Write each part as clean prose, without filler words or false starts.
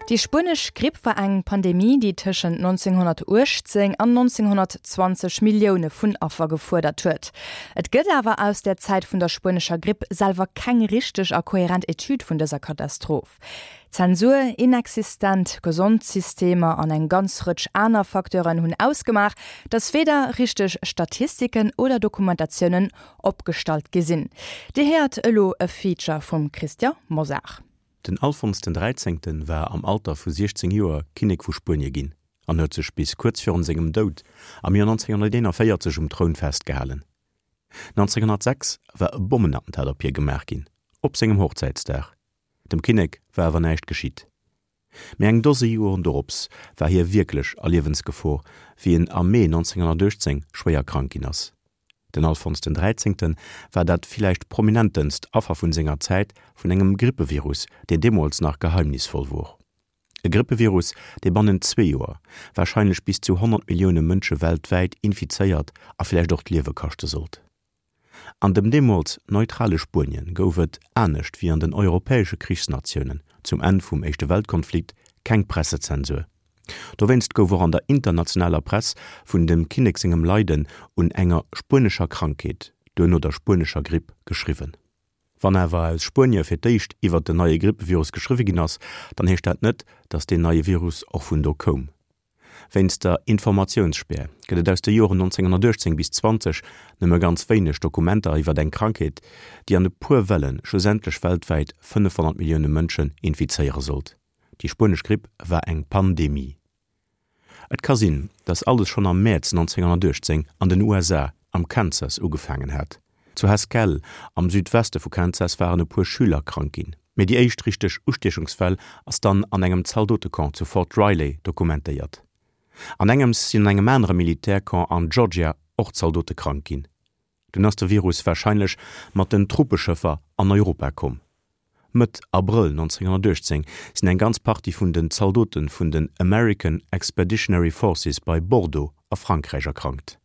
Déi spuenesch Gripp war eng Pandemie, déi tëschent 1918 an 1920 Millioune vun Affer gefuerdert huet. Et gëtt awer aus der Zäit vun der spuenescher Gripp selwer keng richteg a kohärent Etüd vun dëser Katastroph. Zensur, inexistent Gesondsystemer an eng ganz Rëtsch aner Facteuren hunn ausgemaach, datt weder richteg Statistiken oder Dokumentatiounen opgestallt gi sinn. Dir héiert elo e Feature vum Christian Mosar. Den Alfons den Dräizéngten war am Alter vu 16 Joer Kinnek vu Spuenie ginn an huet sech bis kuerz virun sengem Doud am Joer 1941 um Troun festgehalen. 1906 war e Bommenattentat op hie gemaach ginn, op sengem Hochzäitsdag. Dem Kinnek war awer näischt geschitt. Mee eng Dose Joren dorops war hie wierklech a Liewensgefor, wéi en am Mee 1918 schwéier krank ginn ass. Den Alfons den Dräizéngte war dat villäicht prominentenst Affer vun senger Zäit vun engem Grippevirus, deen deemools nach geheimnisvoll wor. E Grippevirus, dee bannent zwee Joer warscheinlech bis zu 100 Millioune Mënsche weltwäit infizéiert a villäicht och d'Liewe kaschte sollt. An dem deemools neutrale Spuenien gouf et, anescht wéi an den europäesche Krichsnatiounen zum Enn vum Éischte Weltkonflikt, keng Pressezensur. Dowéinst gouf och an der internationaler Press vun dem Kinnek sengem Leiden un enger spuenescher Krankheet, duerno der spuenescher Gripp, geschriwwen. Wann awer aus Spuenie fir d'éischt iwwer den neie Grippevirus geschriwwe ginn ass, dann heescht dat net, datt deen neie Virus och vun do koum. Wéinst der Informatiounsspär gëtt et aus de Joren 1918 bis 20 nëmme ganz wéineg Dokumenter iwwer eng Krankheet, déi an e puer Welle schlussendlech weltwäit 500 Millioune Mënschen infizéiere sollt. Déi spuenesch Gripp war eng Pandemie. Et ka sinn, datt alles schonn am Mäerz 1918 an den USA am Kansas ugefaangen hat. Zu Haskell am Südweste vu Kansas waren e puer Schüler krank ginn, mee déi éischt richteg Ustiechungsfäll ass dann an engem Zaldotecamp zu Fort Riley dokumentéiert. An engems sinn an engem anere Militärcamp an Georgia och Zaldote krank ginn. Dunn ass de Virus warscheinlech mat den Truppeschëffer an Europa komm. Mëtt Abrëll 1918 sinn eng ganz Partie vun den Zaldote vun den American Expeditionary Forces bei Bordeaux a Frankräich erkrankt.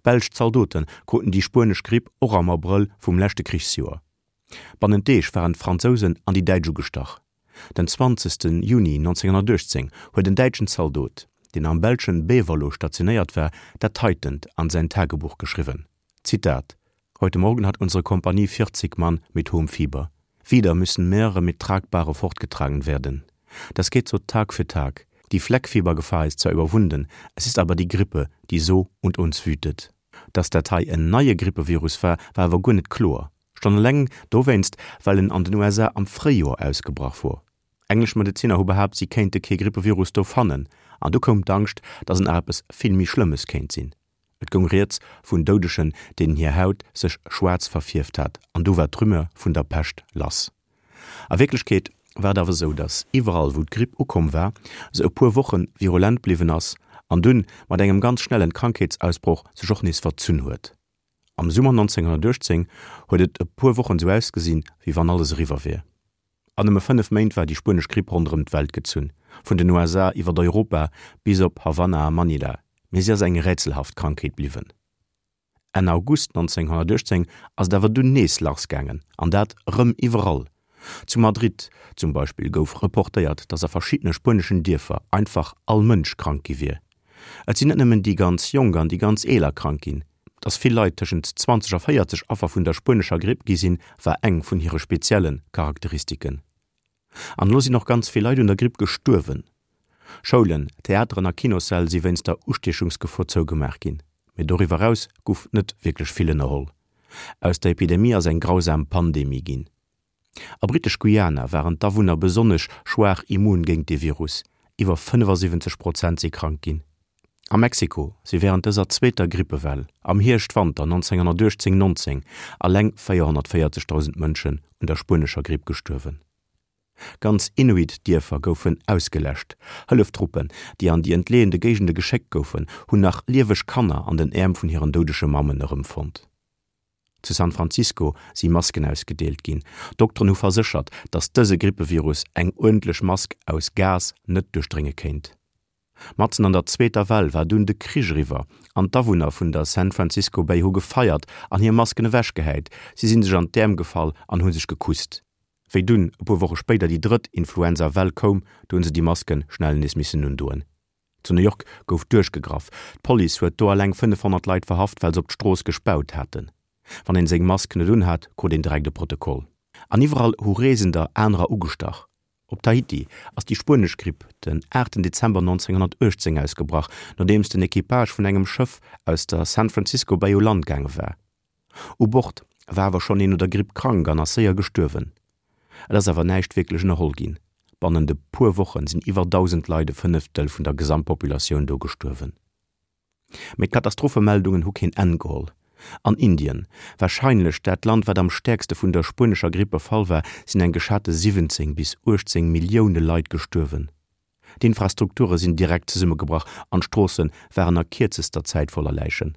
Belsch Zaldote kruten déi spuenesch Gripp och am Abrëll vum leschte Krichsjoer. Bannent Deeg waren d'Fransousen an déi Däitsch ugestach. Den 20. Juni 1918 huet en däitschen Zaldot, deen am belschen Beverloo stationéiert war, dat heitent an säin Tagebuch geschriwwen, Zitat, Heute Morgen hat unsere Kompanie 40 Mann mit hohem Fieber. Wieder müssen mehrere mit Tragbahre fortgetragen werden. Das geht so Tag für Tag. Die Fleckfiebergefahr ist zwar überwunden, es ist aber die Grippe, die so und uns wütet. Dass dat hei en neie Grippevirus war, war awer guer net kloer. Schonn eleng dowéinst, well en an den USA am Fréijoer ausgebrach wor. Englesch Medezinner hu behaapt, si kéinte kee Grippevirus do fannen, an du koum d'Angscht, dass et nach eppes vill méi Schlëmmes kéint sinn. Et goung rieds vun Doudegen, deenen hir Haut sech schwaarz verfierft hat, an du war d'Rumeur vun der Pescht lass. A Wierklechkeet war et awer esou, dass iwwerall, wou d'Gripp ukomm war, se e puer Woche virulent bliwwen ass an dunn mat engem ganz schnellen Krankheetsausbroch sech och nees verzunn huet. Am Summer 1918 huet et e puer Wochen sou ausgesinn, wéi wann alles eriwwer wier. An nëmme 5 Méint war déi spuenesch Gripp ronderëm d'Welt gezunn, vun den USA iwwert Europa bis op Havanna a Manila, mee si ass eng rätselhaft Krankheet bliwwen. Enn August 1918 ass et awer dunn nees lassgaangen, an dat rëm iwwerall. Zu Madrid zum Beispill gouf reportéiert, datt a verschiddene spueneschen Dierfer einfach all Mënsch krank gi wier. Et sinn net nëmmen déi ganz Jonk an déi ganz Eeler krank ginn. Datt vill Leit tëschent 20 a 40 Affer vun der spuenescher Gripp gi sinn, war eng vun hire spezielle Charakteristiken. An elo sinn och ganz vill Leit un der Gripp gestuerwen. Schoulen, Theateren a Kinossäll si wéinst der Ustiechungsgefor zougemaach ginn. Mee doriwwer eraus guff net wierklech vill ënnerholl. Aus der Epidemie ass eng grausam Pandemie ginn. A Britesch-Guyana waren d'Awunner besonnesch schwaach immun géint de Virus, iwwer 75 Prozent si krank ginn. A Mexiko si wärend dëser zweeter Grippewell am Hierscht-Wanter 1918, 19 alleng 440.000 Mënschen un der spuenescher Gripp gestuerwen. Ganz Inuit-Dierfer goufen ausgeläscht. Hëlleftruppen, déi an déi entleeënde Géigende geschéckt goufen, hunn nach lieweg Kanner an den Äerm vun hiren doudege Mammen erëmfonnt. Zu San Francisco si Masken ausgedeelt ginn. Dokteren hu verséchert, datt dëse Grippevirus eng uerdentlech Mask aus Gas net duerchdrénge kéint. Matzen an der zweeter Well war dunn de Krich eriwwer an d'Awunner vun der San Francisco Bay hu gefeiert an hir Masken ewechgehäit. Si si sech an d'Äerm gefall an hu sech gekusst. Wéi dunn e puer Woche spéider déi drëtt Influenza-Well koum, do hunn se déi Masken schnell nees missen undoen. Zu New York gouf duerchgegraff, d'Police huet do alleng 500 Leit verhaft, well se op d'Strooss gespaut haten. Wann een seng Mask net unhat, krut een direkt e Protokoll. An iwwerall hu Reesender anerer ugestach. Op Tahiti ass déi spuenesch Gripp den 8 Dezember 1918 ausgebrach, nodeems den Equipage vun engem Schëff aus der San Francisco Bay u Land gaange war. U Bord war awer schonn een un der Gripp krank an ass séier gestuerwen. Et ass awer näischt wierklech ënnerholl ginn. Bannent e puer Woche sinn iwwer 1.000 Leit, e Fënneftel vun der Gesamtpopulatioun do, gestuerwen. Mee d'Katastrophemeldungen hu keen Enn geholl. An Indien, warscheinlech dat Land wat am stäerkste vun der spuenescher Gripp befall war, sinn eng geschate 17 bis 18 Millioune Leit gestuerwen. D'Infrastrukture sinn direkt zesummegebrach an d'Stroosse waren a kierzester Zäit voller Läichen.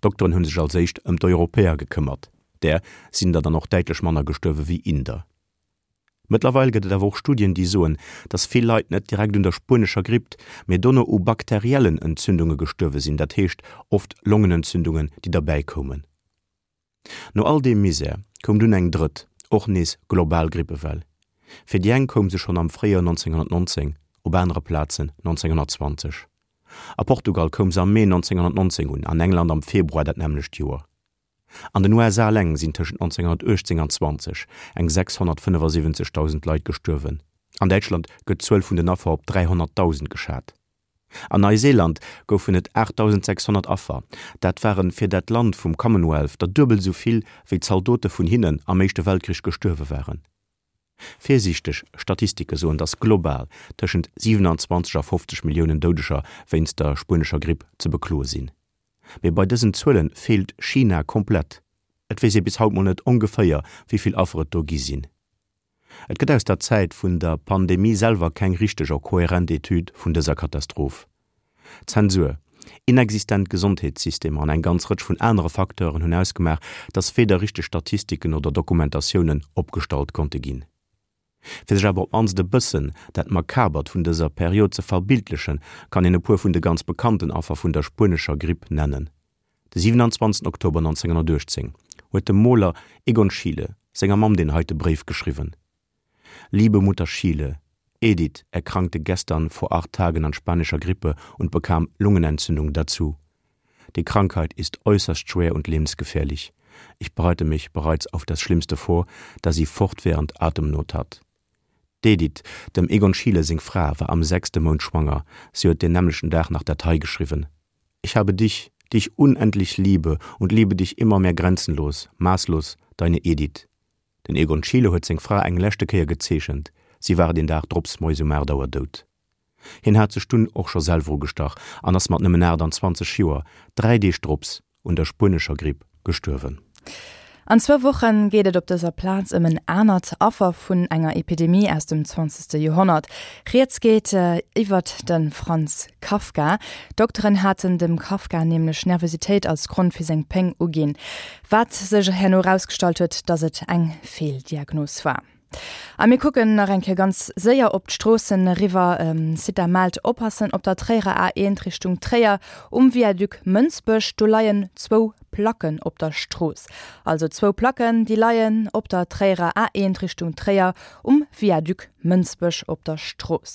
D'Dokteren hu sech als éischt ëm d'Europäer gekëmmert, där sinn der dann och däitlech manner gestuerwe wéi Inder. Mëttlerweil gëtt et awer och Studien, déi soen, datt vill Leit net direkt un der spuenescher Gripp, mee dono u bakteriellen Entzündunge gestuerwe sinn, dat heescht oft Longenentzündungen, déi derbäi koumen. No all deem Misär koum dunn eng drëtt, och nees global Grippewell. Fir déi eng koum se schonn am Fréijoer 1919, op anere Plazen 1920. A Portugal koum se am Mee 1919 un, an England am Februar dat nämmlecht Joer. An den USA eleng sinn tëschent 1918 an 20 eng 675.000 Leit gestuerwen. An Däitschland gëtt d'Zuel vun den Affer op 300.000 geschat. An Neiseeland goufen et 8.600 Affer, dat ware fir dat Land vum Commonwealth der duebel esou vill, wéi Zaldote vun hinnen am Éischte Weltkrich gestuerwe waren. Virsiichteg Statistike soen, datt global tëschent 27 a 50 Milliounen Doudeger wéinst der spuenescher Gripp ze bekloe sinn. Mee bei dësen Zuele feelt China komplett. Et weess ee bis haut mol net ongeféier, wéi vill Affer et do gi sinn. Et gëtt aus der Zäit vun der Pandemie selwer keng richteg a kohärent Etüd vun dëser Katastroph. Zensur, inexistent Gesondheetssystemer an eng ganz Rëtsch vun anere Facteuren hunn ausgemaach, datt weder richteg Statistiken oder Dokumentatiounen opgestallt konnte ginn. Fir sech awer op d'mannst e bëssen dat Makabert vun dëser Period ze verbildlechen, kann een e puer vun de ganz bekannten Affer vun der spuenescher Gripp nennen. De 27 Oktober 1918 huet de Moler Egon Schiele senger Mamm deen heite Bréif geschriwwen, Liebe Mutter Schiele, Edith erkrankte gestern vor acht Tagen an spanischer Grippe und bekam Lungenentzündung dazu. Die Krankheit ist äußerst schwer und lebensgefährlich. Ich bereite mich bereits auf das Schlimmste vor, da sie fortwährend Atemnot hat. D'Edith, dem Egon Schiele seng Fra, war am sechste Mount schwanger. Si huet deen nämmlechten Dag nach dat hei geschriwwen, Ich habe dich, die ich unendlich liebe und liebe dich immer mehr grenzenlos, maßlos, deine Edith. Den Egon Schiele huet seng Fra eng leschte Kéier gezeechent, si war deen Dag drops moies um 8 Auer dout. Hien hat sech dunn och scho selwer ugestach an ass mat nëmmen 28 Joer, 3 Deeg drops, un der spuenescher Gripp gestuerwen. An zwou Woche geet et op dëser Plaz ëm en anert Affer vun enger Epidemie aus dem zwanzegste Joerhonnert. Rieds geet iwwert de Franz Kafka. D'Dokteren haten dem Kafka nämlech Nervositéit als Grond fir seng Péng uginn, wat sech herno erausgestallt huet, datt et eng Feeldiagnos war. A mir kucken nach eng Kéier ganz séier op d'Stroossen eriwwer. Cita mellt, Oppassen op der Tréierer A1 Richtung Tréier um Viaduc Mënsbech, do leien zwou Placken op der Strooss. Also zwou Placken, déi leien op der Tréierer A1 Richtung Tréier um Viaduc Mënsbech op der Strooss.